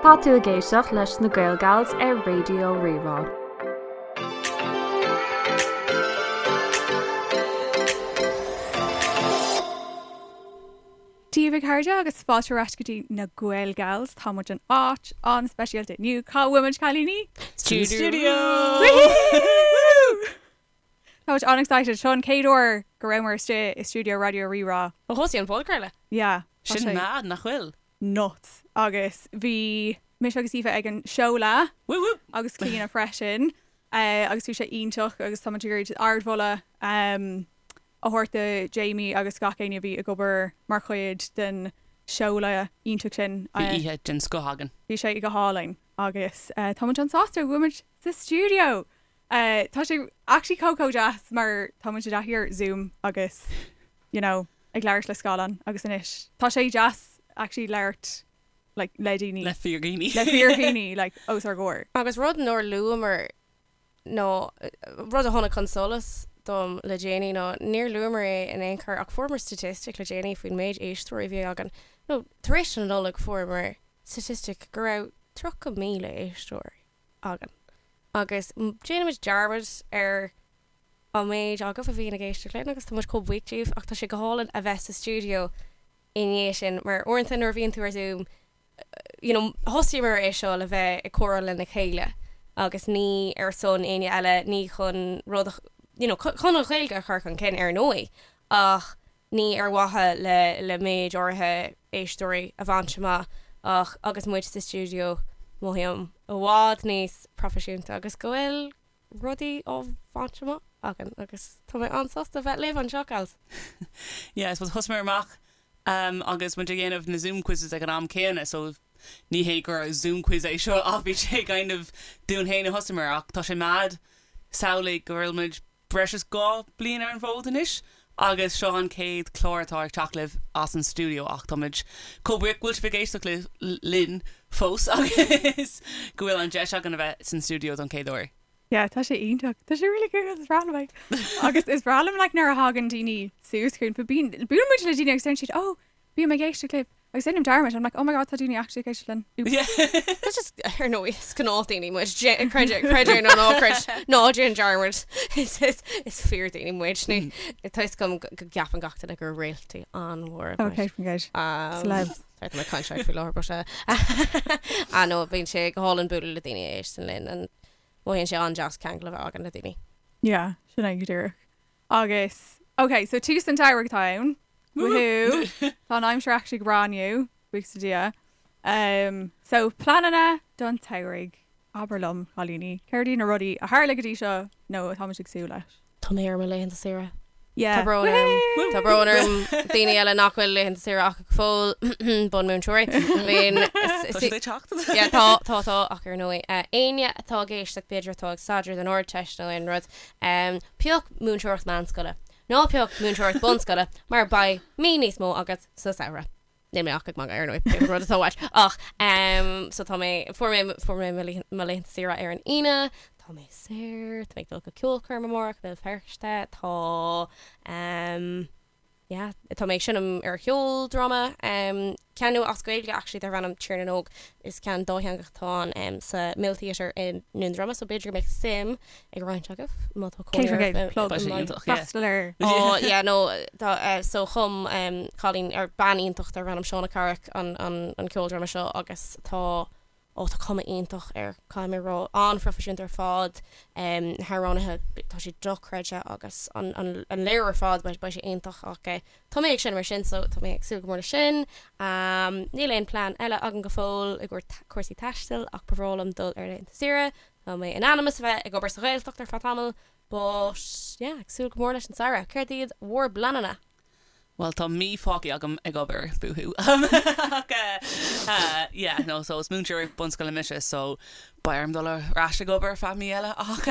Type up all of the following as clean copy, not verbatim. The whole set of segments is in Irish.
Tá tú ag éisteacht leis na Gaelgals ar Raidió Rí-Rá. Dia daoibh a chairde agus fáilte ar ais go dtí na Gaelgals. Tá muid in áit an-speisialta inniu. Cá bhfuil muid cailíní? Studio! Tá muid an-excited. Seo an chéad uair go rabhamar istigh i stiúideo Raidió Rí-Rá. Ó thosaigh an podchraoladh. Yeah. Tá Sin mad, nach bhfuil? Nuts. Agus bhí mise agus Aoife ag an seoladh. Woo woo! Agus Clíona freisin. Agus bhí sé iontach agus tá muid ag iarraidh ardmholadh a thabhairt do Jamie agus gach éinne a bhí ag obair mar chuid den seoladh iontach sin. Bhí oíche den scoth againn. Bhí sé go hálainn agus tá muid an-sásta go bhfuil muid sa stiúideo! Tá sé actually chomh chomh deas mar tá muid i dtaithí ar Zoom agus you know ag labhairt le scáileán agus anois tá sé deas actually labhairt like le daoine. Le fíordhaoine. Le fíordhaoine like os ár gcomhair. Agus rud nár luamar nó rud a tháinig chun solais dom le déanaí ná níor luamar é in aon chor ach fuaireamar statistic le déanaí faoin méid éisteoirí a bhí againn nó tar éis na Nollag fuaireamar statistic go raibh 30,000 éisteoir againn agus déanaimid dearmad ar an méid agaibh a bhíonn ag éisteacht linn agus tá muid chomh buíoch díobh ach tá sé go hálainn a bheith sa stiúideo i ndiaidh sin mar uaireanta nuair a bhíonn tú ar Zoom you know thosaíomar é seo le bheith ag comhrá lena chéile agus ní ar son éinne eile ní chun rud a you know chun an Ghaeilge a chur chun cinn ar ndóigh ach ní ar mhaithe le le méid áirithe éisteoirí a bhaint amach ach agus muid sa stiúideo mothaím i bhfad níos proifisiúnta agus go bhfuil rudaí á bhaint amach againn agus tá mé an-sásta bheith libh anseo, gals. Yeah, I suppose thosaíomar amach um, agus muid ag déanamh na Zoom quizzes ag an am céanna so ní hé gur Zoom quiz é seo ach bhí sé kind of dúinn féin a thosaíomar ach tá sé mad samhlaigh go bhfuil muid breis is 2 bliain ar an bhfód anois agus seo an chéad chlár atá ag teacht libh as an stiúideo ach táimid chomh buíoch go bhfuil sibh ag éisteacht linn fós agus go bhfuil an deis againn a bheith san stiúideo don chéad uair. Yeah, tá sé iontach. Tá sé really cool, is breá liom é. Agus is breá liom like nuair a thagann daoine suas chugainn, bíonn, buaileann muid le daoine agus deireann siad, oh, Bím ag éisteacht libh agus déanaim dearmad, I'm like, oh my god, tá daoine actually ag éisteacht linn. Oops. That's just, ar ndóigh, is gnáthdhaoine muid, creid é, creid é nó ná creid, ná déan dearmad. Is, is, is fíordhaoine muid, ní, tá fhios agam go gceapann gach duine gur réaltaí an-mhóra muid. Okay, faoin gcéad. Celebs. Sorry, tá mé ag caint faoi láthair, but, ah no, bíonn sé go hálainn bualadh le daoine a éisteann linn and mothaíonn sé an-deas ceangal a bheith againn le daoine. Yeah, sin é go díreach. Agus, ok, so tús an tsamhraidh atá ann. Woohoo! Tá an aimsir actually go breá inniu, buíochas le Dia. Um, so pleananna don tsamhraidh. Abair liom, cailíní, céard iad na rudaí a tharla go dtí seo nó atá muid ag súil leis? Tá mé ar mo laethanta saoire. Yeah. Tá brón orm. Tá brón orm daoine eile nach bhfuil laethanta saoire acu go fóill, bunmúinteoirí. I mean, Tá siad ag teacht. Yeah, tá, tá, tá, ach ar ndóigh, éinne atá ag éisteacht b'fhéidir atá ag staidéar don Ardteist nó aon rud, Pioc múinteoireacht meánscoile. Ná pioc múinteoireacht bunscoile mar beidh mí níos mó agat sa samhradh. Níl mé ach ag magadh ar ndóigh, pé rud atá uait. Ach so tá mé, fuair mé, fuair mé mo laethanta saoire ar an Aoine, tá mé saor, tá mé ag dul go ceolchoirm amárach i mBéal Feirste, tá yeah, tá mé ag seinm ar cheoldráma, ceann nua as Gaeilge actually darb ainm Tír na nÓg. Is ceann dátheangach atá ann sa Mill Theatre i nDún Droma so b'fhéidir go mbeadh suim ag roinnt agaibh má tá cónaí oraibh i Plug. Beidh sé iontach, yeah. Freastal air. Oh yeah no tá so chum cailín ar bean iontach darb ainm Shauna Carrick an an an ceoldráma seo agus tá Ó, tá cuma iontach air, caithfidh mé a rá. An-phroifisiúnta ar fad. Na hamhránaithe, tá siad dochreidte agus an léiriú ar fad, beidh sé iontach ach tá mé ag seinm ar sin so tá mé ag súil go mór leis sin. Níl aon plean eile agam go fóill i gcomhair cúrsaí taistil ach ba bhreá liom dul ar laethanta saoire. Tá mé in ainm is a bheith ag obair sa Ghaeltacht ar feadh tamaill but yeah, ag súil go mór leis an samhradh. Céard iad bhur bpleananna? Bhuel, tá mí fágtha agam ag obair, boohoo. Ach yeah, no, so is múinteoir bunscoile mise, so beidh orm dul ar ais ag obair ar feadh mí eile. Ach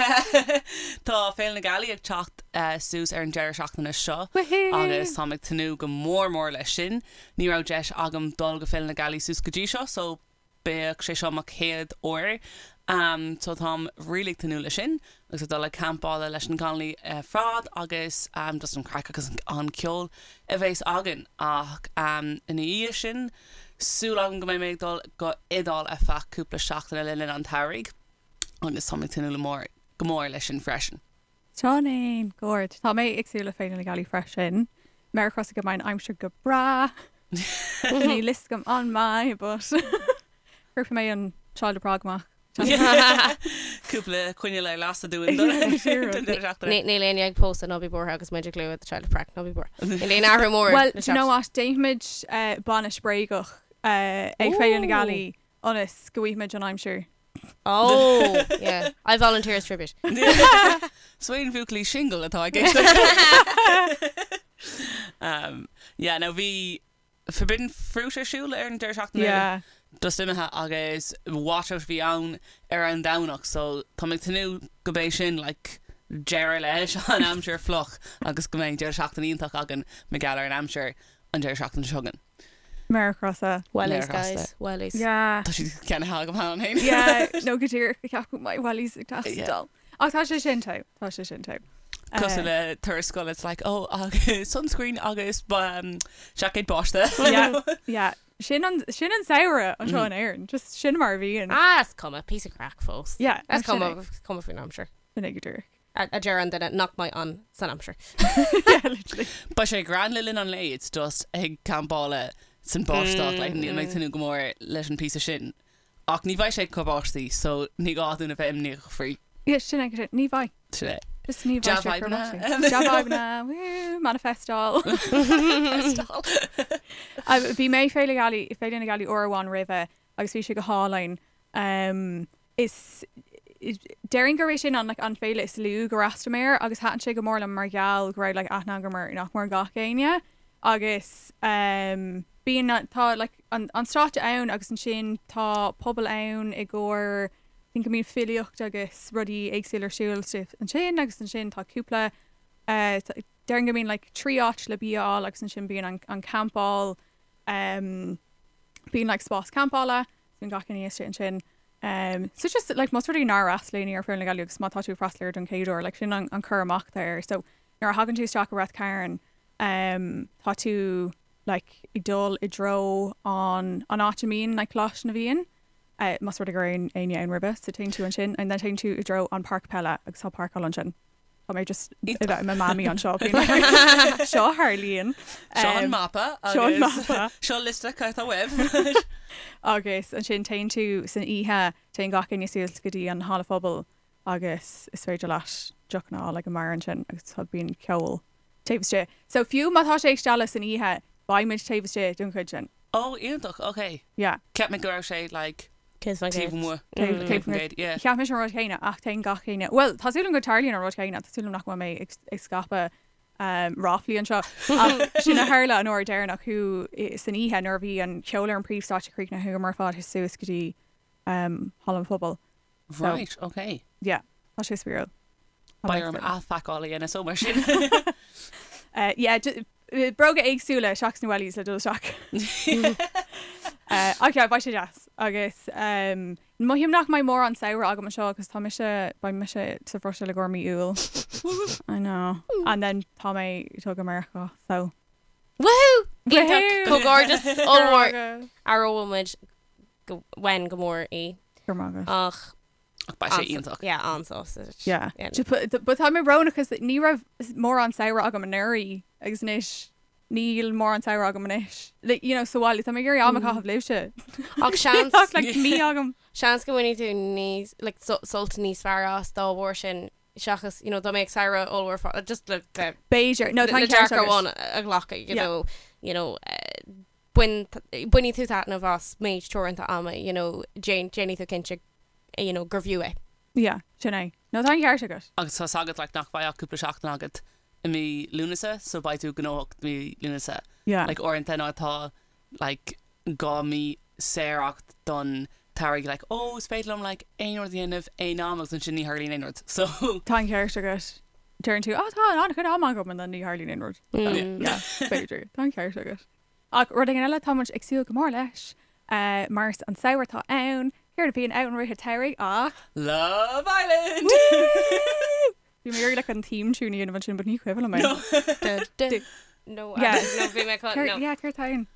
tá Féile na Gealaí ag teacht suas ar an deireadh seachtaine seo agus táim ag tnúth go mór mór leis sin. Ní raibh deis agam dul go Féile na Gealaí suas go dtí seo, so Beidh sé seo mo chéad uair so táim really ag tnúth leis sin agus ag dul ag campála leis na cailíní ar fad agus just an craic agus an ceol a bheas againn ach ina dhiaidh sin. súil agam go mbeidh mé ag dul go Iodáil ar feadh cúpla seachtaine le linn an tsamhraidh agus tá mé ag tnúth le mór go mór leis sin freisin. Sin é, go ard. Tá mé ag súil le Féile na Gealaí freisin. Méar crosta go mbeidh an aimsir go breá. Níl fhios agam an mbeidh, but cuirfidh mé an Child of Prague amach. Cúpla coinneal ar lasadh dúinn don deireadh seachtaine. Níl éinne ag pósadh, ná bí buartha agus muid ag lua The Child of Prague, ná bí buartha. Níl aon athrú mór. Well, do you know what, déanfaimid bainis bréagach ag Féile na Gealaí ionas go bhfaighimid an aimsir. Oh, yeah. I volunteer as tribute. So aon bhuachaillí singil atá ag éisteacht. Yeah, no, bhí Forbidden Fruit ar siúl ar an deireadh seachtaine Yeah. just imithe agus washout a bhí ann ar an Domhnach so tá mé ag tnúth go mbeidh sin like deireadh leis an aimsir fliuch agus go mbeidh deireadh seachtaine iontach againn mar gheall ar an aimsir an deireadh seachtaine seo chugainn. Méar crosta. Wellies, Méar crosta. guys. Wellies. Yeah. Tá siad ceannaithe agam cheana féin. Yeah, no go díreach go ceapadh my wellies ag Yeah. teastáil. Ach tá sé sin togha, tá sé sin togha. Cosúil le turas scoile, it's like, oh, agus sunscreen agus um, seaicéad báistí. Yeah, yeah. Sin an, sin an samhradh anseo in Éirinn, just sin mar a bhíonn. Ah, is cuma, piece of craic fós. Yeah, Is no, sin cuma, é. is cuma faoin aimsir. Sin é go díreach. A a deir an duine nach mbeidh ann san aimsir. Yeah, literally. Beidh sé grand le linn an lae, it's just ag campáil san báisteach, like, níl mé ag tnúth go mór leis an píosa sin. Ach ní bheidh sé ag cur báistí, so ní gá dúinn a bheith imníoch faoi. Yeah, sin é, sin, ní bheidh. Sin é. Just ní bheidh sé ag cur Dea-fhadhbanna. báistí. Dea-fhadhbanna, woo, manifestáil. Bhí mé Féile Gealaí, Féile na Gealaí uair amháin roimhe agus bhí sé go hálainn. Um, is, déarfainn gurb é sin an, like, an féile is lú gur fhreastail mé air agus thaitin sé go mór liom mar gheall go raibh like, aithne agam ar nach mór gach éinne agus um, bíonn tá like, an, an stáitse ann agus ansin tá puball ann i gcomhair I think go mbíonn filíocht agus rudaí éagsúla ar siúl ansin agus ansin tá cúpla uh, déarfainn go mbíonn like, 3 áit le bia a fháil agus ansin bíonn an, an campáil um, bíonn like, spás campála Bíonn gach éinne istigh ansin. Um, so just like más rud é nár fhreastail éinne ar Féile na Gealaí agus má tá tú ag freastal air don chéad uair, like sin an, an cur amach atá air. So nuair a thagann tú isteach i Rath Cairn, um, tá tú like ag dul i dtreo an, an áit a mbíonn like Coláiste na bhFiann, uh, más rud é go raibh éinne ann roimhe, so téann tú ansin and then téann tú i dtreo an páirc peile agus tá páirceáil ansin. Tá mé just ag bheith i mo mamaí anseo. Seo a tharlaíonn. Seo an mapa Seo an agus mapa. seo liosta cad atá uaibh. Agus ansin téann tú san oíche, téann gach éinne suas go dtí an halla phobail agus is féidir leat deochanna a fháil ag an mbeár ansin agus tá bíonn ceol taobh istigh. So fiú má tá sé ag stealladh san oíche, beidh muid taobh istigh don chuid sin. Ó, iontach, ok. Yeah. Cheap mé go raibh sé like 100%. Taobh amuigh. 100%, yeah. Cheap mise an rud céanna ach téann gach éinne, bhuel, tá súil agam go dtarlaíonn an rud céanna, tá súil agam nach bhfuil mé ag scaipeadh ráflaí anseo ach sin a tharla an uair deireanach chuaigh san oíche nuair a bhí an ceol ar an príomhstáitse críochnaithe chuamar ar fad suas go dtí Halla an Phobail. So, Right, ok. Yeah, tá sé spraíúil. Beidh orm athphacáil a dhéanamh so mar sin. Yeah, bróga éagsúla seachas na wellies le dul isteach. Ach yeah, beidh sé deas. Agus mothaím nach mbeidh mórán samhradh agam anseo agus tá mise, beidh mise sa Bhruiséil i gcomhair mí Iúil. I know. And then tá mé ag dul go Meiriceá, so. Woohoo! Iontach! Comhghairdeas ollmhór! Aireoidh muid go, uainn go mór í. Go raibh maith agat. Ach Ach beidh sé iontach. Yeah, an-sásta. Yeah. But tá mé brónach cos ní raibh mórán samhradh agam anuraidh agus anois níl mórán samhradh agam anois. Like, you know, sa bhaile, tá mé ag iarraidh am a chaitheamh libhse. Ach seans. Ach like mí agam. Seans go mbainfidh tú níos, like, sult níos fearr as dá bharr sin seachas, you know, dá mbeadh samhradh ollmhór fá, just le, le, B'fhéidir. No, tá le an ceart dearcadh agat. amháin a ghlacadh, you Yeah. know, you know, bain, bainfidh tú taitneamh as méid teoranta ama, you know, déan, déanfaidh tú cinnte, you know, gur bhfiú é. Yeah, sin é. No, tá an ceart agat. Agus tá 's agat like nach mbeidh ach cúpla seachtain agat i mí Lúnasa so beidh tú gnóthach mí Lúnasa. Yeah. Like uaireanta nuair atá like 2 mí saor agat don tsamhradh like oh is féidir liom like aon rud a dhéanamh aon am agus ansin ní tharlaíonn aon rud so. Tá an ceart agat. Deireann tú oh tá an-chuid ama agam and then ní tharlaíonn aon rud. Yeah, b'fhéidir. Tá an ceart agat. Ach rud éigin eile atá muid ag súil go mór leis, mar is an samhradh atá ann, céard a bhíonn ann i rith an tsamhraidh ach. Love Island! Woo! Bhí mé ag iarraidh like an theme tune a dhéanamh ansin but ní cuimhin liom é. No, no, bhí mé chun, no. Yeah, céard atá ann?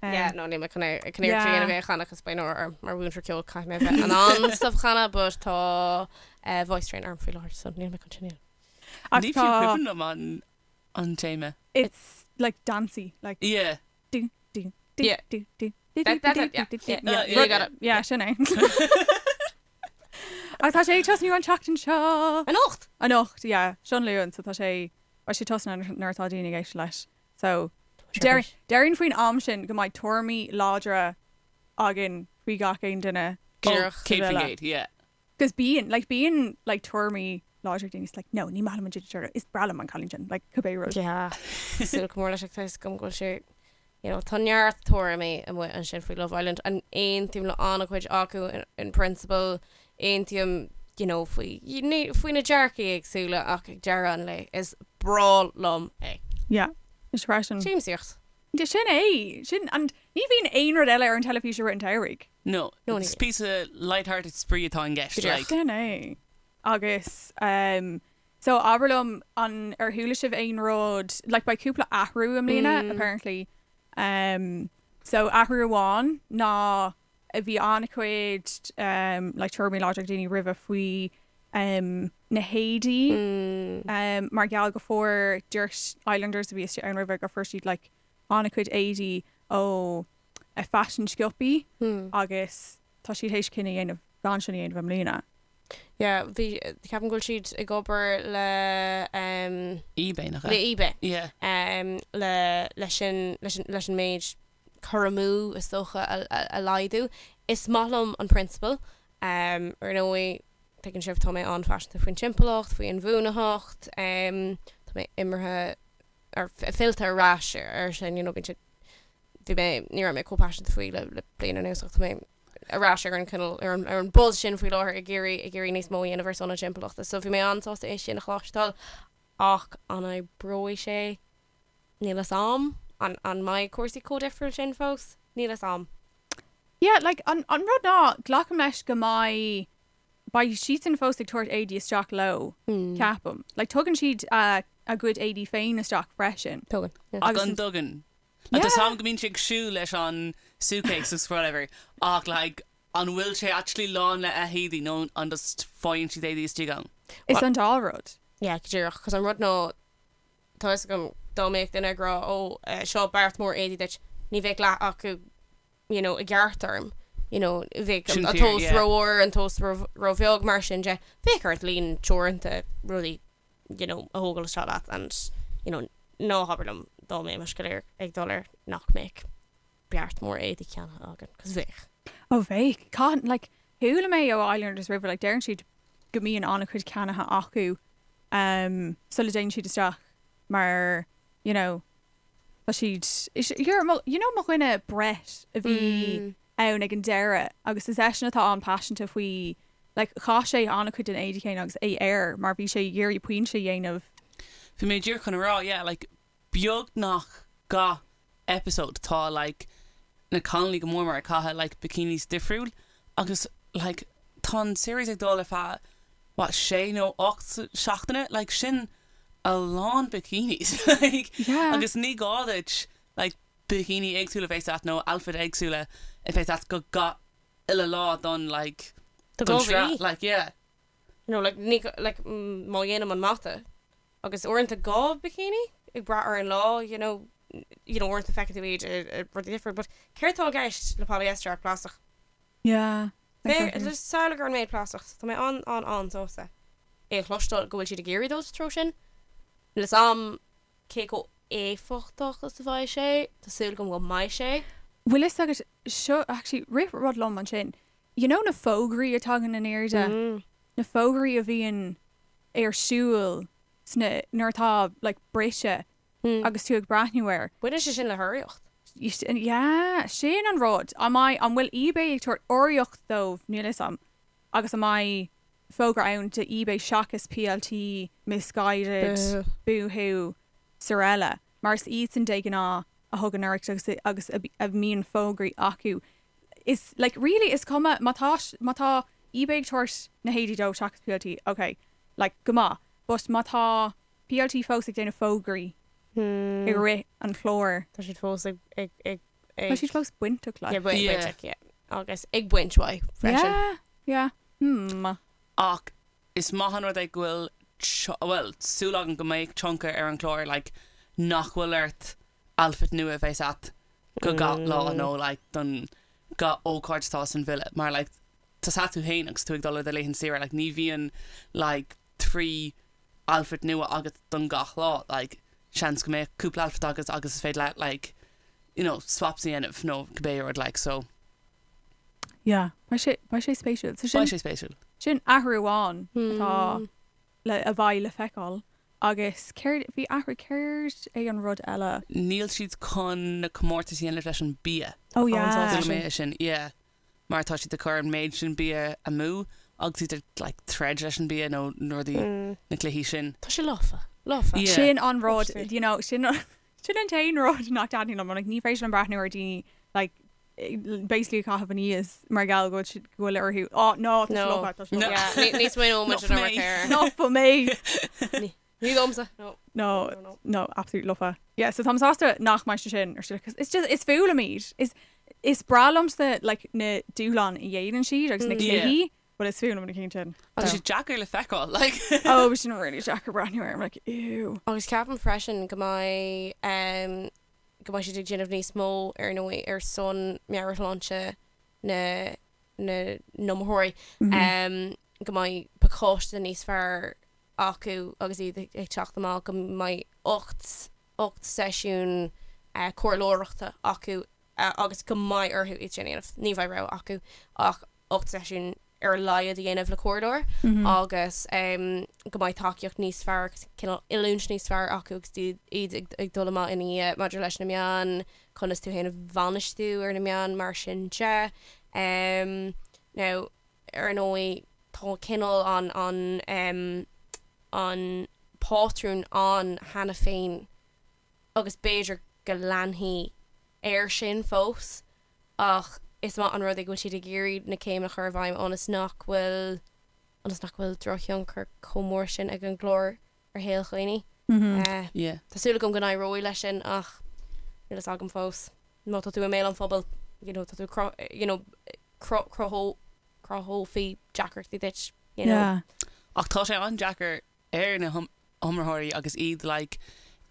Yeah, no, níl mé chun é, chun iarracht a dhéanamh é a chanadh cos beidh náire orm mar mhúinteoir ceoil caithfidh mé a bheith in ann stuff a chanadh but tá eh, voice strain orm faoi láthair so níl mé chun sin a dhéanamh. Ach Ní fiú tá cuimhin liom an an téama. it's like dancey, like Yeah. do do do Yeah. do do do That- do that's do it, yeah, do do yeah, yeah. yeah, you got it. Yeah, sin é. Ach tá sé ag tosnú an tseachtain seo. Anocht! Anocht, yeah, seo an Luan, so tá sé beidh sé tosnaithe nuair atá daoine ag éisteacht leis. So déarfainn faoin am sin go mbeidh tuairimí láidre againn faoi gach aon duine. Oh, Díreach. 100%, yeah. Cos bíonn, like bíonn like tuairimí láidre ag daoine, it's like no, ní maith liom an Ginger Turtle, is breá liom an cailín sin, like cibé rud. Yeah. Súil go mór leis ach tá fhios agam go bhfuil sé, you know, tá neart tuairimí amuigh ansin faoi Love Island and aontaím le an-chuid acu in, in principle, aontaím, you know, faoi, faoi na dearcaí éagsúla ach ag deireadh an lae is breá liom é. Yeah, is freisin. Siamsaíocht. Yeah, sin é, sin, and ní bhíonn aon rud eile ar an teilifís i rith an tsamhraidh. No, No, ní it's píosa light-hearted spraoi atá i gceist, Go díreach. like. Sin é. Agus, um, so abair liom an ar chuala sibh aon rud, like beidh cúpla athrú i mbliana, Mm. apparently. Um, so athrú amháin ná bhí an-chuid um, like tuairimí láidre ag daoine roimhe faoi um, na héadaí Mm. um, mar gheall go fuair Dirt Islanders a bhí istigh ann roimhe go fuair siad like an-chuid éadaí ó a fashion siopaí Mm. agus tá siad théis cinneadh a dhéanamh gan sin a dhéanamh i mbliana. Yeah, bhí, ceapaim go bhfuil siad ag obair le um, eBay nach le ea? eBay. Yeah. Um, le, leis sin, leis an, leis an méid cur amú is dócha a, a, a laghdú. Is maith liom an prionsabal. Um, ar ndóigh, tuigeann sibh tá mé an-phaiseanta faoin timpeallacht, faoi inbhuanaitheacht, um, tá mé imithe ar fillte ar ais ar sin, you know, bíonn sé, bhí mé, ní raibh mé chomh paiseanta faoi le, le bliain anuas ach tá mé ar ais ar an cineál, ar an, ar an buzz sin faoi láthair ag iarraidh, ag iarraidh níos mó a dhéanamh ar son na timpeallachta. So bhí mé an-sásta é sin a chloisteáil ach an oibreoidh sé? Níl fhios a'm. An, an mbeidh cúrsaí chomh difriúil sin fós? Níl fhios a'm. Yeah, like, an, an rud ná, glacaim leis go mbeidh, beidh siadsan fós ag tabhairt éadaí isteach leo, ceapaim. Like, tugann siad a, a gcuid éadaí féin isteach freisin. Tugann, yeah. Agus An dtugann. Like, tá 's a'm go mbíonn siad ag siúl leis an suitcase agus whatever ach like an bhfuil sé actually lán le héadaí nó an just faigheann siad éadaí istigh ann? Is an dá rud. Yeah, go díreach, cos an rud ná, tá fhios agam dá mbeadh duine ag rá ó seo beart mór éadaí duit, ní bheadh leath acu you know i gceart orm, you know bheadh Sin an fíor, tomhas yeah. rómhór, an tomhas róbheag mar sin de, bheadh ort líon teoranta rudaí you know a thógáil isteach leat and you know ná habair liom dá mbeimis go léir ag dul air nach mbeadh beart mór éadaí ceannaithe againn, cos bheadh. Ó bheadh. Caithfidh, like, chuala mé ó Islanders roimhe, like, deireann siad go mbíonn an-chuid ceannaithe acu um, sula dtéann siad isteach mar, you know, tá siad, is, here, mo, you know mo dhuine Brett a bhí Mm. ann ag an deireadh agus is eisean atá an-paiseanta faoi, like, chaith sé an-chuid den éadaí céanna agus é air mar bhí sé ag iarraidh pointe a dhéanamh. Bhí mé díreach chun a rá, yeah, like, beagnach gach episode tá like na cailíní go mór mór ag caitheamh like bikinis difriúil agus like tá an series ag dul ar feadh what sé nó 8 seachtaine like sin a lán bikinis like Yeah. agus ní gá duit like bikini éagsúla a bheith ort nó outfit éagsúla a bheith ort go gach uile lá don like Do don go sraith like yeah. You know like ní like má dhéanaim an mata Agus uaireanta 2 bikini ag brath ar an lá, you know, you know uaireanta feiceann tú iad i rudaí difriúil, but céard atá i gceist le polyester ach plaisteach? Yeah, exactly. Just samhlaigh ar an méid plaisteach, so tá mé an, an, an-sásta é a chloisteáil go bhfuil siad ag iarraidh dul sa treo sin. Níl 'fhios a'm cé chomh éifeachtach is a bheidh sé, tá súil agam go mbeidh sé. Bhfuil fhios agat, seo, actually, rith rud liom ansin, you know na fógraí a tagann in airde, na fógraí a bhíonn ar siúl sna, nuair atá like briseadh agus tú ag breathnú air. Baineann sé sin le hurraíocht. Yeah, sin an rud. An mbeidh, an bhfuil eBay ag tabhairt urraíocht dóibh, níl fhios a'm, agus an mbeidh fógra ann do eBay seachas PLT, Missguided, Boohoo, Sorella, mar is iadsan de ghnáth a thugann urraíocht agus agus a mbíonn fógraí acu. Is like really is cuma má tá má tá eBay ag tabhairt na héadaí dóibh seachas PLT, ok, like go maith, but má tá PLT fós ag déanamh fógraí i rith an chláir. Tá siad fós ag ag ag Ag. Tá siad fós bainteach leis. Yeah, bain- Yeah. bainteach, yeah. Agus ag baint uaidh freisin. Yeah, yeah. Hmm. Ach is maith an rud é go bhfuil tio- bhuel, súil agam go mbeidh tionchar ar an chlár like nach bhfuil ort outfit nua a bheith agat go gach lá nó like don gach ócáid atá san villa mar like tá tú féin agus tú ag dul ar do laethanta saoire like ní bhíonn like 3 outfit nua agat don gach lá like seans go mbeadh cúpla outfit agat agus is féidir leat like you know swaps a dhéanamh nó cibé rud like so Yeah, beidh sé beidh sé spéisiúil. So sin beidh sé spéisiúil. sin athrú amháin atá le a bheidh le feiceáil agus céard bhí athrú céard é an rud eile? Níl siad chun na comórtais a dhéanamh leis an bia. Oh yeah. Chuala mé é sin yeah. mar tá siad ag cur an méid sin bia amú agus iad ag like troid leis an bia nó na rudaí, na cluichí sin. Tá sé lofa, lofa. Yeah. Sin an rud, Obviously. you know, sin sin an t-aon rud nach dtaitníonn liom, like ní féidir liom breathnú ar daoine like basically ag caitheamh aníos mar gheall go bhfuil siad go bhfuil orthu, oh no, tá sé No. lofa, tá sé No. lofa. Yeah, ní- ní smaoineoidh muid Not ar for me. air. Not for me. Ní domsa. No. No, No, no. no, absolute lofa. Yeah, so táim sásta nach mbeidh sé sin ar siúl, 'cause it's just, is fuath liom iad. Is, is breá liomsa, like, na dúshláin a dhéanann siad agus na Mm. Yeah. cluichí, but is fuath liom na cinn sin. Tá sé deacair le feiceáil, like. Oh, bhí sin really deacair breathnú air, I'm like, ew. Agus ceapaim freisin go mbeidh um, go mbeidh siad ag déanamh níos mó ar ndóigh ar son meabhairshláinte na na n-iomaitheoirí Mm-hmm. um, go mbeidh pacáiste níos fearr acu agus iad ag teacht amach go mbeidh 8 8 seisiún comhairleoireachta acu agus go mbeidh orthu iad sin a dhéanamh. Ní bheidh rogha acu ach 8 seisiún ar a laghad a dhéanamh le comhairleoir agus go mbeidh tacaíocht níos fearr agus cineál oiliúint níos fearr acu agus iad ag dul amach ina dhiaidh maidir leis na meáin, conas tú féin a bhainistiú ar na meáin mar sin de. Now, ar ndóigh, tá cineál an, an, em, an pátrún ann cheana féin agus b'fhéidir go leanfaí air sin fós ach is maith an rud é go bhfuil siad ag iarraidh na céimeanna a chur i bhfeidhm ionas nach bhfuil, ionas nach bhfuil drochthionchar chomh mór sin ag an gclár ar shaol dhaoine. Eh, Yeah. tá súil agam go n-éireoidh leis sin ach níl fhios agam fós. Má tá tú i mbéal an phobail, you know, tá tú you know, cruthófaí deacrachtaí duit, you know. Yeah. Ach tá sé an-deacair ar na hiomaitheoirí agus iad like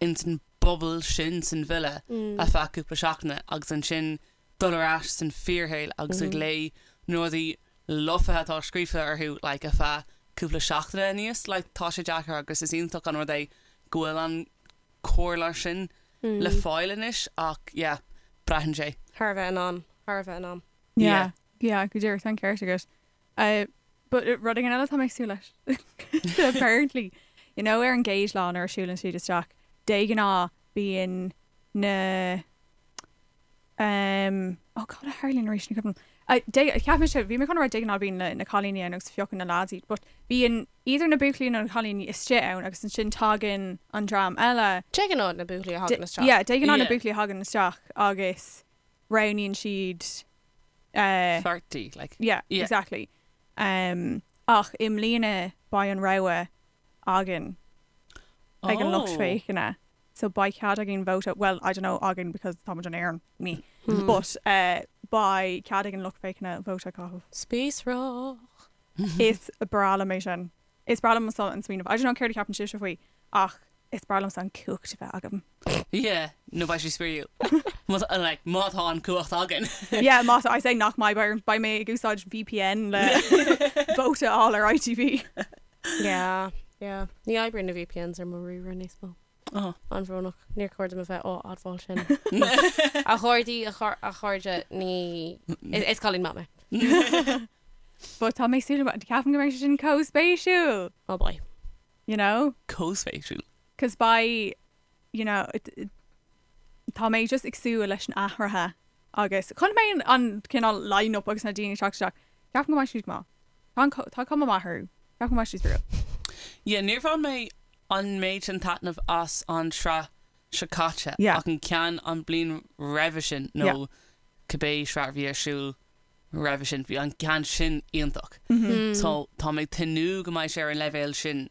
ins an bubble sin san villa ar feadh cúpla seachtaine agus ansin dul ar ais san fíorshaol agus ag léamh na rudaí lofa atá scríofa orthu like ar feadh cúpla seachtaine aníos like tá sé deacair agus is iontach an rud é go bhfuil an comhairle sin le fáil anois ach yeah braitheann sé. Thar a bheith in am, thar a bheith in am. Yeah, yeah, go díreach, tá an ceart agat. Uh, but uh, rud éigin eile tá mé ag súil leis. Apparently, you know, ar an gcéad lá nuair a siúlann siad isteach, de ghnáth bíonn na um, oh God, a tharlaíonn arís ní cuimhin liom. Uh, de, cheap mise, bhí mé chun a rá de ghnáth bíonn na, na cailíní ann agus piocann na lads iad, but bíonn either na buachaillí nó na cailíní istigh ann agus ansin tagann an dream eile. De ghnáth na buachaillí a thagann isteach. Yeah, de ghnáth na Yeah. buachaillí a thagann isteach agus roghnaíonn siad uh, Pháirtí, like. Yeah, Yeah. exactly. Um, ach i mbliana beidh an rogha againn ag an lucht Oh. féachana. So beidh cead againn vóta, well, I don't know againn because tá muid in Éirinn, me. Hmm. But uh, beidh cead ag an lucht féachana vóta a chaitheamh. Spíosrach. Is breá liom é sin. Is breá liom an smaoineamh. I don't know céard a cheapann sibhse faoi ach is breá liomsa an cumhacht a bheith agam. Yeah, nó beidh sé spraíúil. Má tá- like, má tá an cumhacht againn. Yeah, má I say nach mbeidh beidh beidh mé ag úsáid VPN le vóta a fháil ar ITV. Yeah, yeah. Ní oibríonn na VPNs ar mo ríomhaire níos mó. Oh. An-bhrónach. Níor chóir dom a bheith á admháil sin. A chairde, a char- a chairde, ní... Is is cailín maith mé. But tá mé ag súil ceapaim go mbeidh sé sin chomh spéisiúil, Oh boy. you know? Chomh spéisiúil. Cos beidh, you know, it, it, tá mé just ag súil leis an athruithe agus chonaic mé an, an cineál line-up agus na daoine ag teacht isteach. Ceapaim go mbeidh siad go maith. Tá an co- tá cuma maith orthu. Ceapaim go mbeidh siad spraíúil. Yeah, níor bhain mé an méid sin taitneamh as an sraith seo caite Yeah. ach an ceann an bliain roimhe sin nó Yeah. cibé sraith a bhí ar siúl roimhe sin, bhí an ceann sin iontach. Mm-hmm. So tá mé ag tnúth go mbeidh sé ar an leibhéal sin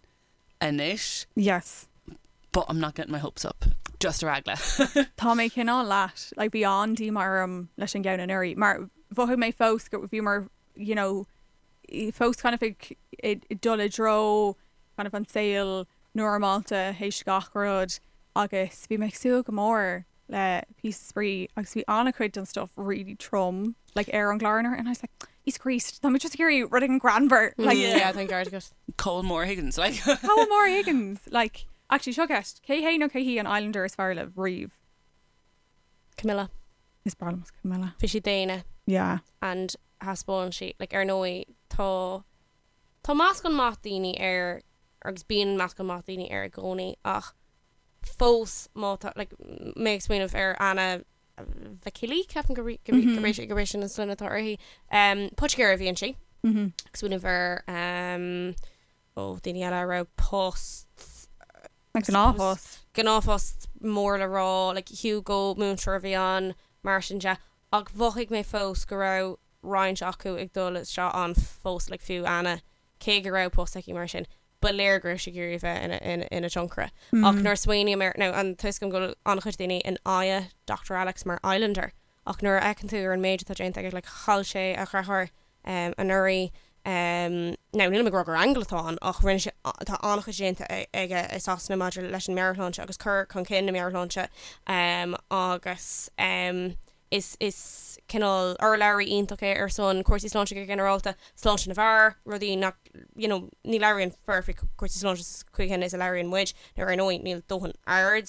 anois, Yes. but I'm not getting my hopes up. Just ar eagla. Tá mé cineál leat, like bhí an-díomá orm leis an gceann anuraidh mar mhothaigh mé fós go bhíomar you know fós kind of ag dul i dtreo kind of an saol normálta théis gach rud agus bhí mé ag súil go mór le píosa spraoi agus bhí an-chuid den stuff really trom like ar an gclár anuraidh and I was like Íosa Críost, tá mé just ag iarraidh rud éigin greannmhar like Yeah, tá an ceart agat. Col Maura Higgins like. Col Maura Higgins like actually seo ceist, cé hé nó cé hí an Islander is fearr libh riamh? Camilla. Is breá liom Camilla. Bhí sí daonna. Yeah. And thaispeáin sí, like ar ndóigh tá tá meascán maith daoine air agus bíonn meascán maith daoine air i gcónaí ach fós má tá like mé ag smaoineamh ar Anna Vakili, ceapaim gurb é gurb é sin an sloinne atá uirthi. Poitigéir a bhí inti. Ag smaoineamh ar ó daoine eile a raibh post Gnáthphost. Gnáthphost mór le rá, like Hugo, múinteoir a bhí ann, mar sin de. Ach mhothaigh mé fós go raibh roinnt acu ag dul isteach ann fós, like fiú Anna, cé go raibh post aici mar sin. ba léir go raibh sí ag iarraidh a bheith ina tionchaire. Ach nuair a smaoiním air, now tá a fhios agam go bhfuil an-chuid daoine in aghaidh Dr Alex mar Islander, ach nuair a fheiceann tú ar an méid atá déanta aige, like chaill sé a dheartháir anuraidh, now nílim ag rá gur aingeal atá ann, ach rinne sé, tá an-chuid déanta aige i Sasana maidir leis an meabhairshláinte agus cur chun cinn na meabhairshláinte agus. Is is cineál urlabhraí iontach é ar son cúrsaí sláinte go ginearálta, sláinte na bhfear, rudaí nach, you know, ní labhraíonn fir faoi chúrsaí sláinte sa chaoi chéanna is a labhraíonn muid, nó ar ndóigh níl dóthain aird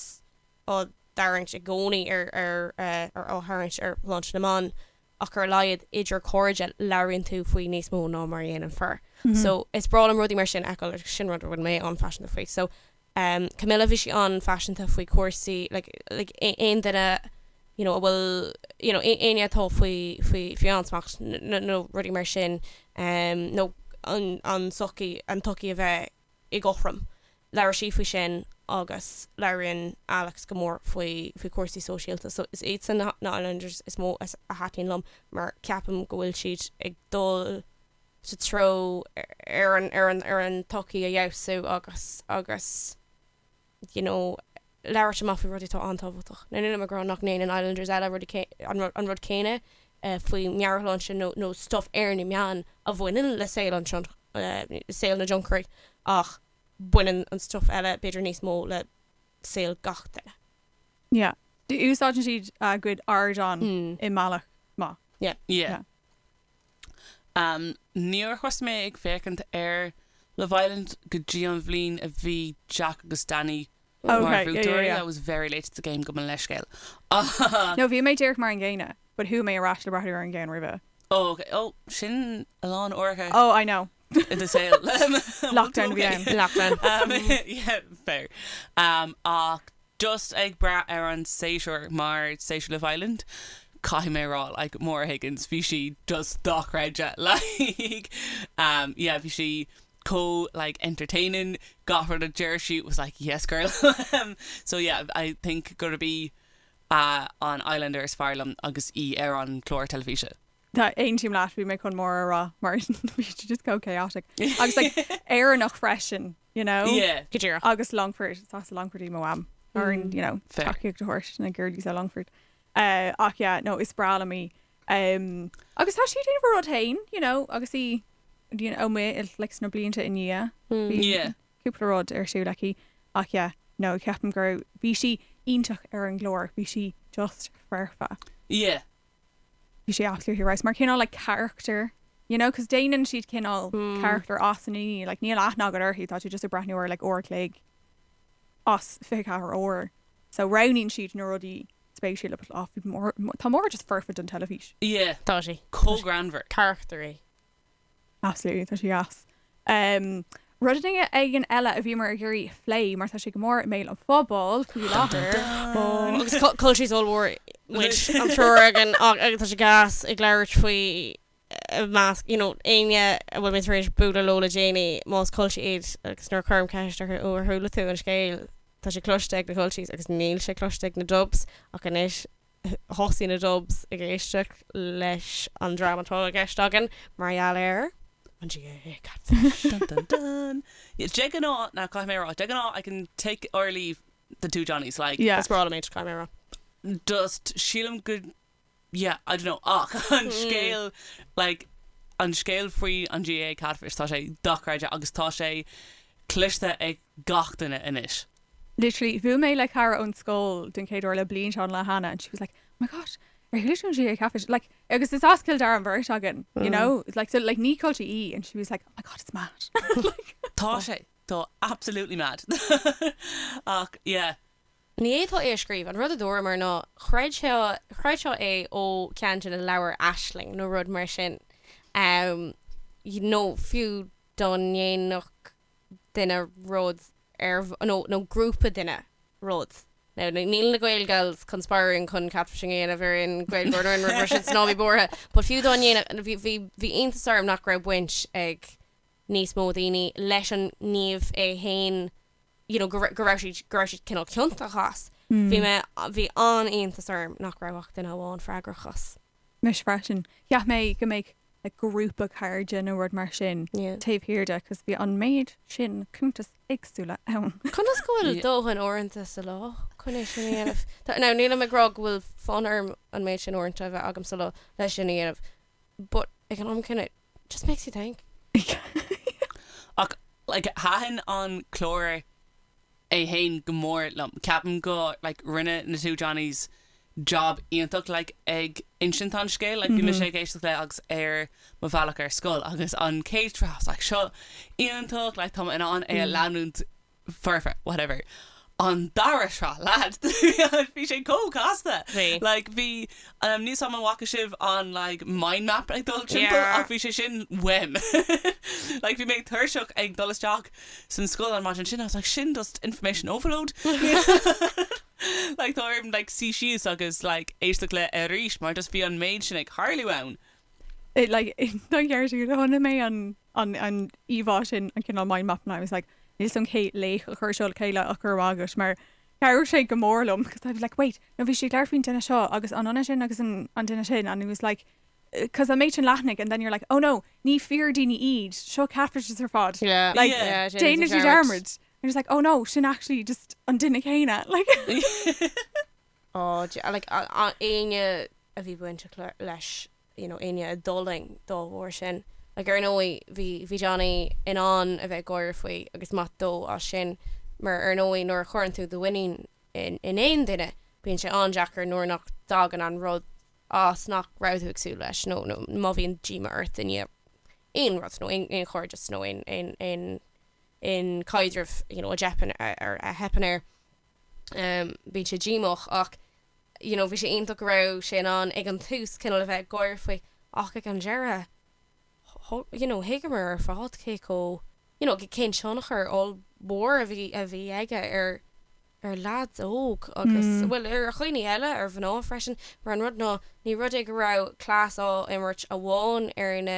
á dtarraingt i gcónaí ar ar ar á tharraingt ar shláinte na mban ach ar a laghad idir cairde labhraíonn tú faoi níos mó ná mar a dhéanann fir. So is breá liom rudaí mar sin a fheiceáil agus sin rud a bhfuil mé an-phaiseanta faoi. So Camilla, bhí sí an-phaiseanta faoi chúrsaí, like, like aon duine, you know, a bhfuil, you know, éinne atá faoi, faoi, faoi ansmacht nó rudaí mar sin, nó an, an tsochaí, an tsochaí a bheith i gcothrom. Labhair sí faoi sin agus labhraíonn Alex go mór faoi, faoi chúrsaí sóisialta. So is iadsan na, na Islanders is mó a thaitníonn liom mar ceapaim go bhfuil siad ag dul sa treo ar an ar an ar an tsochaí a fheabhsú agus agus you know labhairt amach faoi rudaí atá an-tábhachtach. Now nílim ag rá nach ndéanann Islanders eile rudaí an rud an rud céanna faoi meabhairshláinte nó nó stuff ar na meáin a bhaineann le saol an saol na dtionchairí ach baineann an stuff eile b'fhéidir níos mó le saol gach duine. Yeah. Úsáideann siad a gcuid ardán i mbealach maith. Yeah. Yeah. Níor thosaigh mé ag féachaint ar Love Island go dtí an bhliain a bhí Jack agus Danny mar bhuaiteoirí. I was very late to the game gabh mo leithscéal. No, bhí mé díreach mar an gcéanna, but chuaigh mé ar ais le breathnú ar an gceann roimhe. Oh, ok. Oh, sin a lán uaireacha. Oh, I know. I do saol. Lockdown a bhí ann. Lockdown. Yeah, fair. Ach just ag brath ar an séasúr mar séasúr Love Island, caithfidh mé a rá, like, Maura Higgins, bhí sí just dochreidte, like, um, yeah, bhí sí chomh, like, entertaining, gach rud a deir sí was like, yes girl, so yeah, I think gurb í uh, an Islander is fearr liom agus í ar an chlár teilifíse. Tá aontaím leat, bhí mé chun Maura a rá mar bhí sí just chomh chaotic. Agus like Éireannach freisin, you know? Yeah. Go díreach. Agus Longford, is as Longford í mo mham. Ar you know, Fair. tacaíocht a thabhairt na girlies ó Longford. Uh, ach yeah, no, is breá liom í. Um, agus tá sí ag déanamh a rud féin, you know, agus í you know, amuigh like, sna blianta i ndiaidh. Bhí Yeah. cúpla rud ar siúl aici. Ach yeah, no, ceapaim go raibh, bhí sí iontach ar an gclár, bhí sí just foirfe. Yeah. Bhí sé absolutely right. Mar cineál like character, you know, cos déanann siad cineál character as na daoine, like níl aithne agat orthu, tá tú just ag breathnú ar like uair a chloig as 24 uair. So roghnaíonn siad na rudaí spéisiúla but oh, bhí Maura, tá Maura just foirfe don teilifís. Yeah. Tá sí. Chomh greannmhar. Character í. Absolutely, tá sí deas. Um, rud éigin eile a bhíomar ag iarraidh a phlé mar tá sé go mór i mbéal an phobail faoi láthair. Agus culchies ollmhór muid an triúr againn agus tá sé gas ag labhairt faoi i measc, you know, éinne a bhfuil mé tar éis bualadh leo le déanaí más culchie iad agus nuair a chuirim ceist orthu ó ar chuala tú an scéal tá sé cloiste ag na culchies agus níl sé cloiste ag na dubs ach anois thosaigh na Dubs ag éisteacht leis an dream atá i gceist againn mar gheall ar an GAA Catfish. Dun dun dun. Yeah, de ghnáth, now caithfidh mé a rá, de ghnáth I can take or leave. the two Johnnies like Yeah. Is breá liom é, caithfidh mé a rá. just sílim go yeah I don't know ach an scéal like an scéal faoi an GAA Catfish tá sé dochreidte agus tá sé cloiste ag gach duine anois. Literally, bhuail mé le cara ón scoil den chéad uair le bliain seo an lá cheana and she was like, oh my gosh, ar chuala tú an GAA Catfish? Like, agus is as Cill Dara an bheirt againn, you know? It's like, so like ní culture í and she was like, oh my god, it's mad. Like, Tá sé, tá absolutely mad. Ach yeah. Ní fhéadfá é a scríobh. An rud a dúramar ná chreidfeá, chreidfeá é ó cheann de na leabhair Aisling nó rud mar sin. Nó fiú dá ndéanfadh duine rud ar, nó, nó grúpa duine rud. Now, níl na Gaelgals conspiring chun catfishing a dhéanamh ar aon Ghaeilgeoir nó aon rud mar sin, so ná bí buartha. But fiú dá ndéanfadh, bhí, bhí, bhí iontas orm nach raibh baint ag níos mó daoine leis an ngníomh é fhéin, you know, go, go raibh siad, go raibh siad cineál ciontach as. Bhí mé, bhí an-iontas orm nach raibh ach duine amháin freagrach as. Mise freisin. Cheap mé go mbeadh like grúpa cairde nó rud mar sin taobh thiar de cos bhí an méid sin cuntas éagsúla ann. Conas go bhfuil dóthain uaireanta sa lá chun é sin a dhéanamh? Now nílim ag rá go bhfuil fonn orm an méid sin uaireanta a bheith agam sa lá leis sin a dhéanamh but ag an am céanna it just makes you think. Ach like thaitin an clár é fhéin go mór liom. Ceapaim go like rinne na two Johnnies job iontach like ag insint an scéil. Like bhí mise ag éisteacht le agus ar mo bhealach ar scoil agus an chéad sraith I was like seo iontach like tá mé in ann é a leanúint forever whatever. An dara sraith lads bhí sé chomh casta. Bhí. Like bhí um, níl 's agam an bhfaca sibh an like mind map ag dul timpeall Yeah. ach bhí sé sin uaim. Like bhí mé tuirseach ag dul isteach san scoil an maidin sin I was like sin just information overload. Like tá orm like suí síos agus like éisteacht le arís mar just bhí an méid sin ag tarlú ann. It like don cheart agat chonaic mé an an an íomhá sin an cineál mind map and I was like níl 's agam cé laoch a chuir seo le chéile ach go raibh maith agat mar chabhraigh sé go mór liom because I was like wait no bhí sé ag labhairt faoin duine seo agus an duine sin agus an an duine sin and it was like because an méid sin leathanaigh and then you're like oh no ní fíor daoine iad seo catfishes ar fad Yeah. like Yeah. déanann siad dearmad and just like oh no sin actually just an duine céanna like Oh, like éinne a bhí bainteach leis you know éinne a d'fhulaing dá bharr sin. Like ar ndóigh bhí bhí Johnny in ann a bheith ag gáire faoi agus maith dó as sin mar ar ndóigh nuair a chuireann tú do mhuinín in in aon duine bíonn sé an-deacair nuair nach dtagann an rud as nach raibh tú ag súil leis nó nó má bhíonn díoma ort i ndiaidh aon rud nó aon aon chairdeas nó aon aon aon aon caidreamh you know a dteipeann ar a theipeann air. Um, bíonn sé díomách ach you know bhí sé iontach go raibh sé in ann ag an tús cineál a bheith ag gáire faoi ach ag an deireadh you know thuigeamar ar fad cé chomh you know cén tionchar ollmhór a bhí a bhí aige ar ar leaids óg agus bhuel ar dhaoine eile ar mhná freisin mar an rud ná ní rud é go raibh cleas á imirt amháin ar na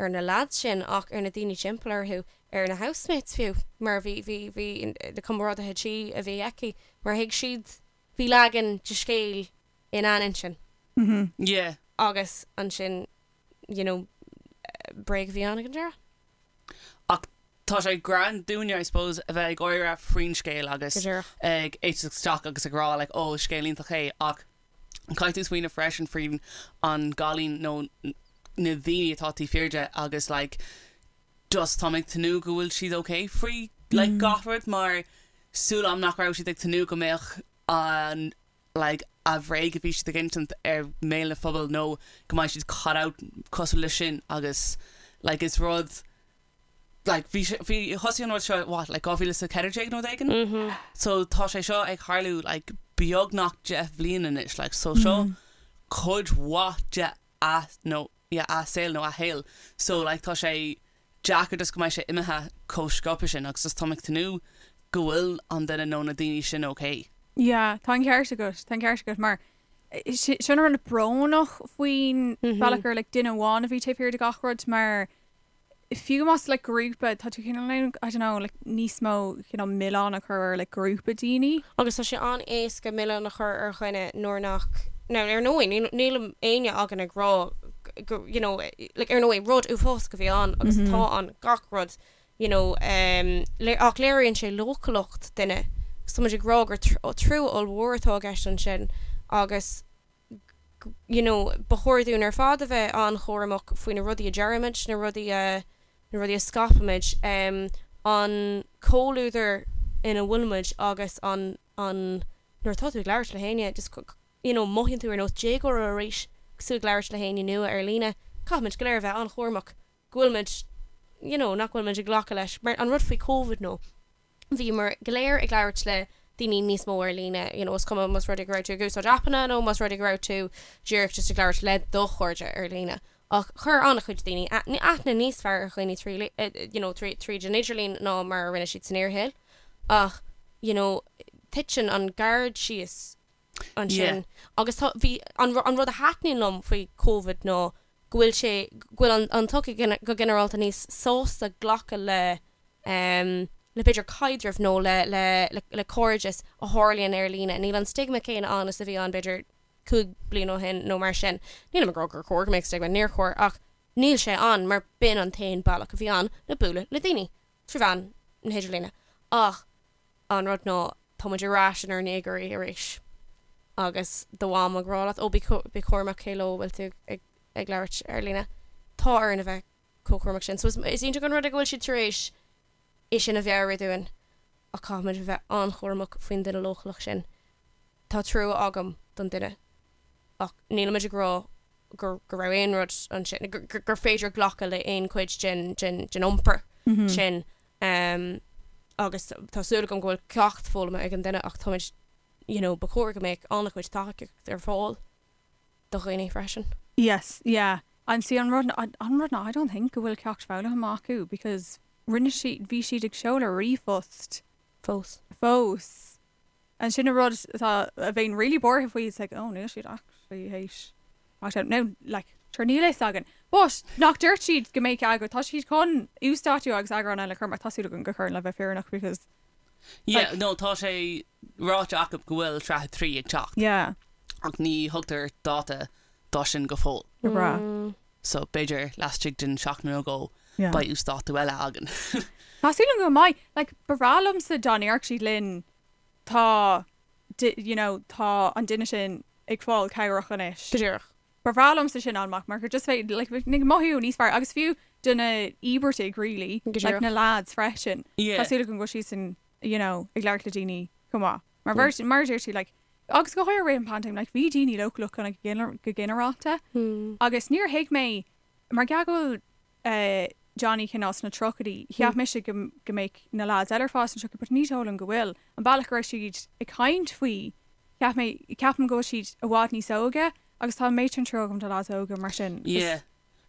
ar na leaids sin ach ar na daoine timpeall orthu, ar na housemates fiú, mar bhí, bhí, bhí na comrádaithe tí a bhí aici, mar thuig siad, bhí leagan de scéal ina n-intinn. Yeah. Agus ansin, you know, bréag a bhí ann ag an deireadh. Ach tá sé greann dúinne, I suppose, a bheith ag gáire faoin scéal agus Go díreach. ag éisteacht isteach agus ag rá like, oh, scéal iontach é ach caithfidh tú smaoineamh freisin faoin an gcailín nó na daoine atá taobh thiar de agus like just táim ag tnúth go bhfuil siad ok faoi like gach rud mar súil agam nach raibh siad ag tnúth go mbeadh an like a bhréag a bhí siad ag insint ar mbéal na phobail nó go mbeidh siad caught out cosúil leis sin agus like is rud like bhí sé bhí thosaigh an rud seo what like 2014 nó rud éigin so tá sé seo ag tarlú like beagnach 10 bhliain anois like so seo cuid mhaith de a nó yeah a saol nó a shaol so like tá sé deacair just go mbeidh sé imithe chomh sciobtha sin agus just táim ag tnúth go bhfuil an duine nó na daoine sin okay. Yeah, tá an ceart agat, tá an ceart agat mar sin an rud brónach faoin bealach gur like duine amháin a bhí taobh thiar de gach rud mar fiú más like grúpa tá tú cineál I don't know like níos mó cineál milleán a chur ar like grúpa daoine. Agus tá sé an-éasca milleán a chur ar dhuine nuair nach, now ar ndóigh níl níl éinne againn ag rá go you know like ar ndóigh rud uafásach a bhí ann agus atá ann gach rud you know um, ach léiríonn sé leochaileacht duine. Agus tá muid ag rá gur trua ollmhór atá i gceist ansin agus you know ba chóir dúinn ar fad a bheith an-chúramach faoi na rudaí a deirimid, na rudaí a, na rudaí a scaipimid, an comhluadar ina bhfuilimid agus an, an, nuair atá tú ag labhairt le héinne just you know mothaíonn tú ar nós déagóra arís agus tú ag labhairt le héinne nua ar líne. Caithfimid go léir a bheith an-chúramach go bhfuilimid you know nach bhfuilimid ag glacadh leis mar an rud faoi Covid nó bhíomar go léir ag labhairt le daoine níos mó ar líne, you know is cuma más rud é go raibh tú ag úsáid aipeanna nó más rud é go raibh tú díreach just ag labhairt le do chairde ar líne. Ach chuir an-chuid daoine aithne níos fearr ar dhaoine trí you know tríd an idirlíon ná mar a rinne siad san fhíorshaol. Ach you know titeann an gard síos ansin agus tá bhí an an rud a thaitníonn liom faoi Covid ná go bhfuil sé go bhfuil an an tsochaí go ginearálta níos sásta glacadh le le b'fhéidir caidreamh nó le le le cairdeas a tharlaíonn ar líne. Níl an stigma céanna ann is a bhí ann b'fhéidir 5 bliain ó shin nó mar sin. Nílim ag rá gur chóir go mbeadh stigma, níor chóir, ach níl sé ann mar b'in an t-aon bealach a bhí ann le bualadh le daoine, trí mheán na hidirlíne. Ach an rud ná, tá muid ar ais inár ndéagóirí arís agus do mham ag rá leat, ó bí cúramach cé leo a bhfuil tú ag labhairt ar líne. Tá orainn a bheith chomh cúramach sin. So is iontach an rud é go bhfuil siad tar éis é sin a mheabhrú dúinn ach caithfimid a bheith an-chúramach faoin duine leochaileach sin. Tá trua agam don duine ach nílimid ag rá go go raibh aon rud ansin, gur féidir glacadh le aon chuid den den den iompar sin agus tá súil agam go bhfuil ceacht foghlamtha ag an duine ach táimid you know ba chóir go mbeadh an-chuid tacaíocht ar fáil do dhaoine freisin. Yes, yeah. And see an rud an rud ná I don't think go bhfuil ceacht foghlamtha acu because rinne siad bhí siad ag seoladh ríomhphost Fós. Fós. And sin an rud atá a bheinn really buartha faoi it's like oh níl siad actually théis teacht out now like sure níl a fhios againn. But nach dúirt siad go mbeadh eagrán tá siad chun uasdátú agus eagrán eile a chur amach tá súil agam gur chuireann le bheith fírinneach because Yeah, like no tá sé ráite acu go bhfuil sraith 3 ag teacht. Yeah. Ach ní thugtar dáta dó sin go fóill. Go breá. So b'fhéidir laistigh den seachtain nó dhó Yeah. beidh uasdátú eile againn. Tá súil agam go mbeidh. Like, ba bhreá liomsa dá ndéarfadh siad linn tá you know tá an duine sin ag fáil cabhrach anois. Go díreach. Ba bhreá liomsa sin a fháil amach mar gur just bheith like ag mothú níos fearr agus fiú do na íobartaigh really Go like díreach. na lads freisin. Yeah. Tá súil agam go bhfuil siadsan you know ag labhairt le daoine chomh maith. Mar bheirt mar a deir tú like agus go háirithe i rith an paindéim like bhí daoine leochaileach kind of go ginearálta agus níor thuig mé mar gheall go bhfuil eh Johnny cineál sna tríochaidí cheap mise go go mbeadh na lads eile ar fad sna tríochaidí but ní dóigh liom go bhfuil. An bealach go raibh siad ag caint faoi cheap mé ceapaim go bhfuil siad i bhfad níos óige agus tá an méid sin trua agam do lads óga mar sin. Yeah.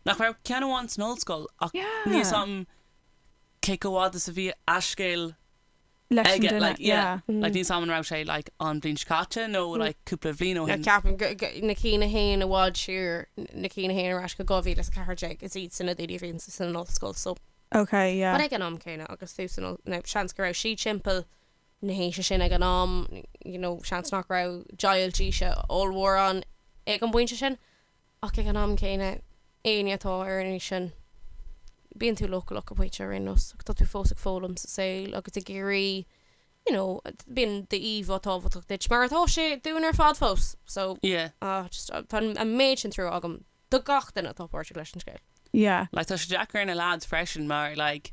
Nach raibh ceann amháin san ollscoil ach Yeah. níl a fhios agam cé chomh fhada is a bhí a scéal leis an aige duine like yeah yeah. like níl a fhios agam an raibh sé like an bhliain seo caite nó like cúpla bhliain ó shin. Ceapaim go na cinn a théann i bhfad siar na cinn a théann ar ais go 2014 is iad sin na daoine a bhíonn san ollscoil so Okay yeah. But ag an am céanna agus tú san no seans go raibh siad timpeall na haoise sin ag an am you know seans nach raibh deighilt aoise ollmhór ann ag an bpointe sin Ach ag an am céanna, éinne atá ar an aois sin, bíonn tú leochaileach go pointe ar aon nós, ach tá tú fós ag foghlaim sa saol agus ag iarraidh, you know, bíonn d'íomhá tábhachtach duit, mar atá sé dúinn ar fad fós. So, Yeah. ah, just, tá an méid sin trua agam do gach duine atá páirteach leis an scéal. Yeah. Like, tá sé deacair ar na lads freisin mar, like,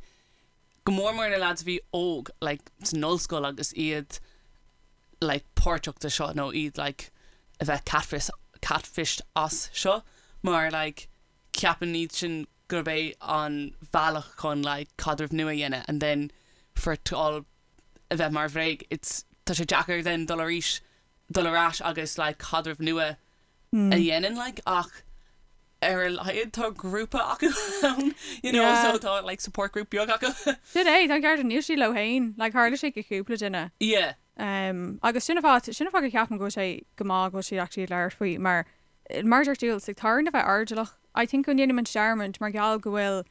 go mór mór na lads a bhí óg, like, san ollscoil agus iad, like, páirteach de seo nó iad, like, a bheith catfish, catfished as seo mar, like, ceapann iad sin gurb é an bhealach chun, like, caidreamh nua a dhéanamh and then for it to all a bheith mar bhréag, it's, tá sé deacair then dul arís, dul ar ais agus, like, caidreamh nua a dhéanamh, like, ach ar a laghad tá grúpa acu ann, you know, Yeah. so tá, like, support group beag acu. Sin é, tá an ceart níl siad leo féin, like, tharla sé go cúpla duine. Yeah. Um, agus sin an fáth, sin an fáth go ceapaim go bhfuil sé go maith go bhfuil siad actually ag labhairt faoi mar mar a deir Jules, like, tá orainn a bheith airdeallach. I think go ndéanaimid dearmad mar gheall go bhfuil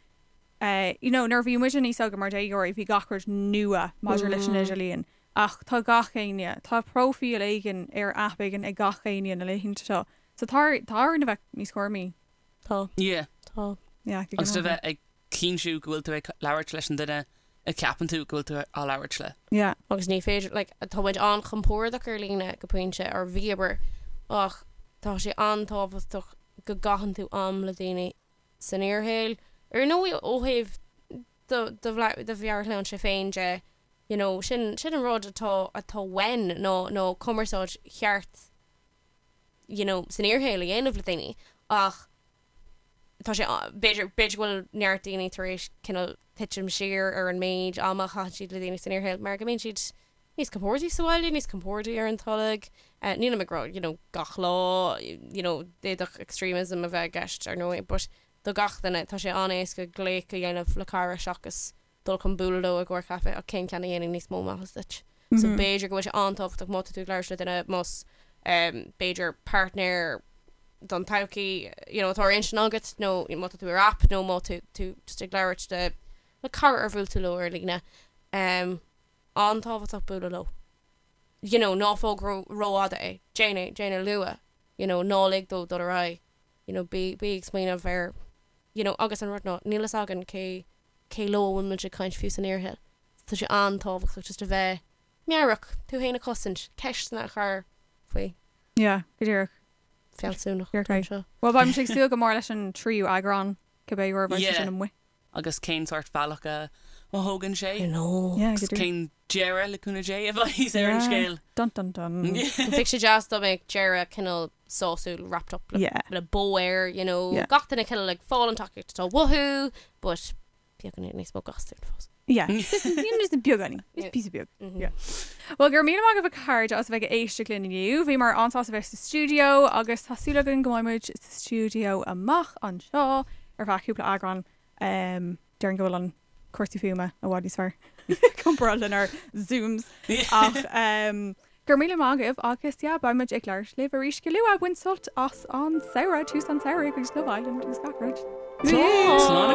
eh, you know, nuair a bhí muid níos óige mar déagóirí bhí gach rud nua maidir leis an idirlíon. Ach tá gach éinne, tá próifíl éigin ar aip éigin ag gach éinne na laethanta seo. So tá tá orainn a bheith níos cúramaí. Tá. Yeah. Tá. Yeah, go Agus a ginearálta. bheith ag cinntiú go bhfuil tú ag labhairt leis an duine. a cheapann tú go bhfuil tú á labhairt le. Yeah. Agus ní féidir, like, tá muid an-chompordach ar líne go pointe, or bhíomar, ach tá sé an-tábhachtach go gcaitheann tú am le daoine san fhíorshaol. Ar ndóigh ó thaobh do do do mheabhairshláinte féin de, you know, sin sin an rud atá atá uainn ná ná cumarsáid cheart, you know, san fhíorshaol a dhéanamh le daoine ach tá sé b'fhéidir b'fhéidir go bhfuil neart daoine tar éis cineál titim siar ar an méid ama a chaitheann siad le daoine san fhíorshaol mar go mbíonn siad níos compordaí sa bhaile, níos compordaí ar an tolg. Nílim ag rá, you know, gach lá, you know, d'fhéadfadh extremism a bheith i gceist ar ndóigh, but do gach duine, tá sé an-éasca glaoch a dhéanamh le cara seachas dul chun bualadh leo i gcomhair caife ach cén ceann a dhéanann níos mó maitheas duit? So b'fhéidir go bhfuil sé an-tábhachtach má tá tú ag labhairt le duine, más b'fhéidir páirtnéir don todhchaí, you know, atá ar intinn agat nó má tá tú ar app nó má tá tú just ag labhairt le le cara ar bhuail tú leo ar líne, an-tábhachtach bualadh leo. You know, ná fág rófhada é, déan é, déan é luath, you know, ná lig dó dul ar aghaidh, you know, bí, bí ag smaoineamh air, you know, agus an rud ná, níl fhios againn cé, cé leo a bhfuil muid ag caint fiú san fhíorshaol. So tá sé an-tábhachtach just a bheith meabhrach, tú féin a chosaint, ceisteanna a chur faoi. Yeah, go díreach. Fealsúnacht Díreach é. anseo. Bhuel, beidh muid ag súil go mór leis an tríú eagrán, cibé uair a bheidh sé Yeah. sin amuigh. Agus cén sórt bealach a thógann sé? I know. Yeah, Agus go díreach. cén deireadh, le cúnamh Dé, a bheidh ar an Yeah. scéal? Dun dun dun. Bheadh sé deas dá mbeadh deireadh cineál sásúil wrapped up le, Yeah. le bow air, you know, Yeah. gach duine cineál ag fáil an tacaíocht atá uathu, but beagán níos mó gastúin fós. Yeah. Just just beagáinín. Just Yeah. píosa beag. Mhm. Yeah. Well, go raibh míle maith agaibh a chairde as a bheith ag éisteacht linn inniu. Bhíomar an-sásta bheith sa stiúideo agus tá súil againn go mbeidh muid sa stiúideo amach anseo ar feadh cúpla eagrán. Um, déarfainn go bhfuil an cúrsaí fuaime i bhfad níos fearr comparáid lenár Zooms. Ach um, go raibh míle maith agaibh agus yeah, beidh muid ag labhairt libh arís go luath. Bain sult as an samhradh, tús an tsamhraidh agus Love Island agus gach rud. Slán.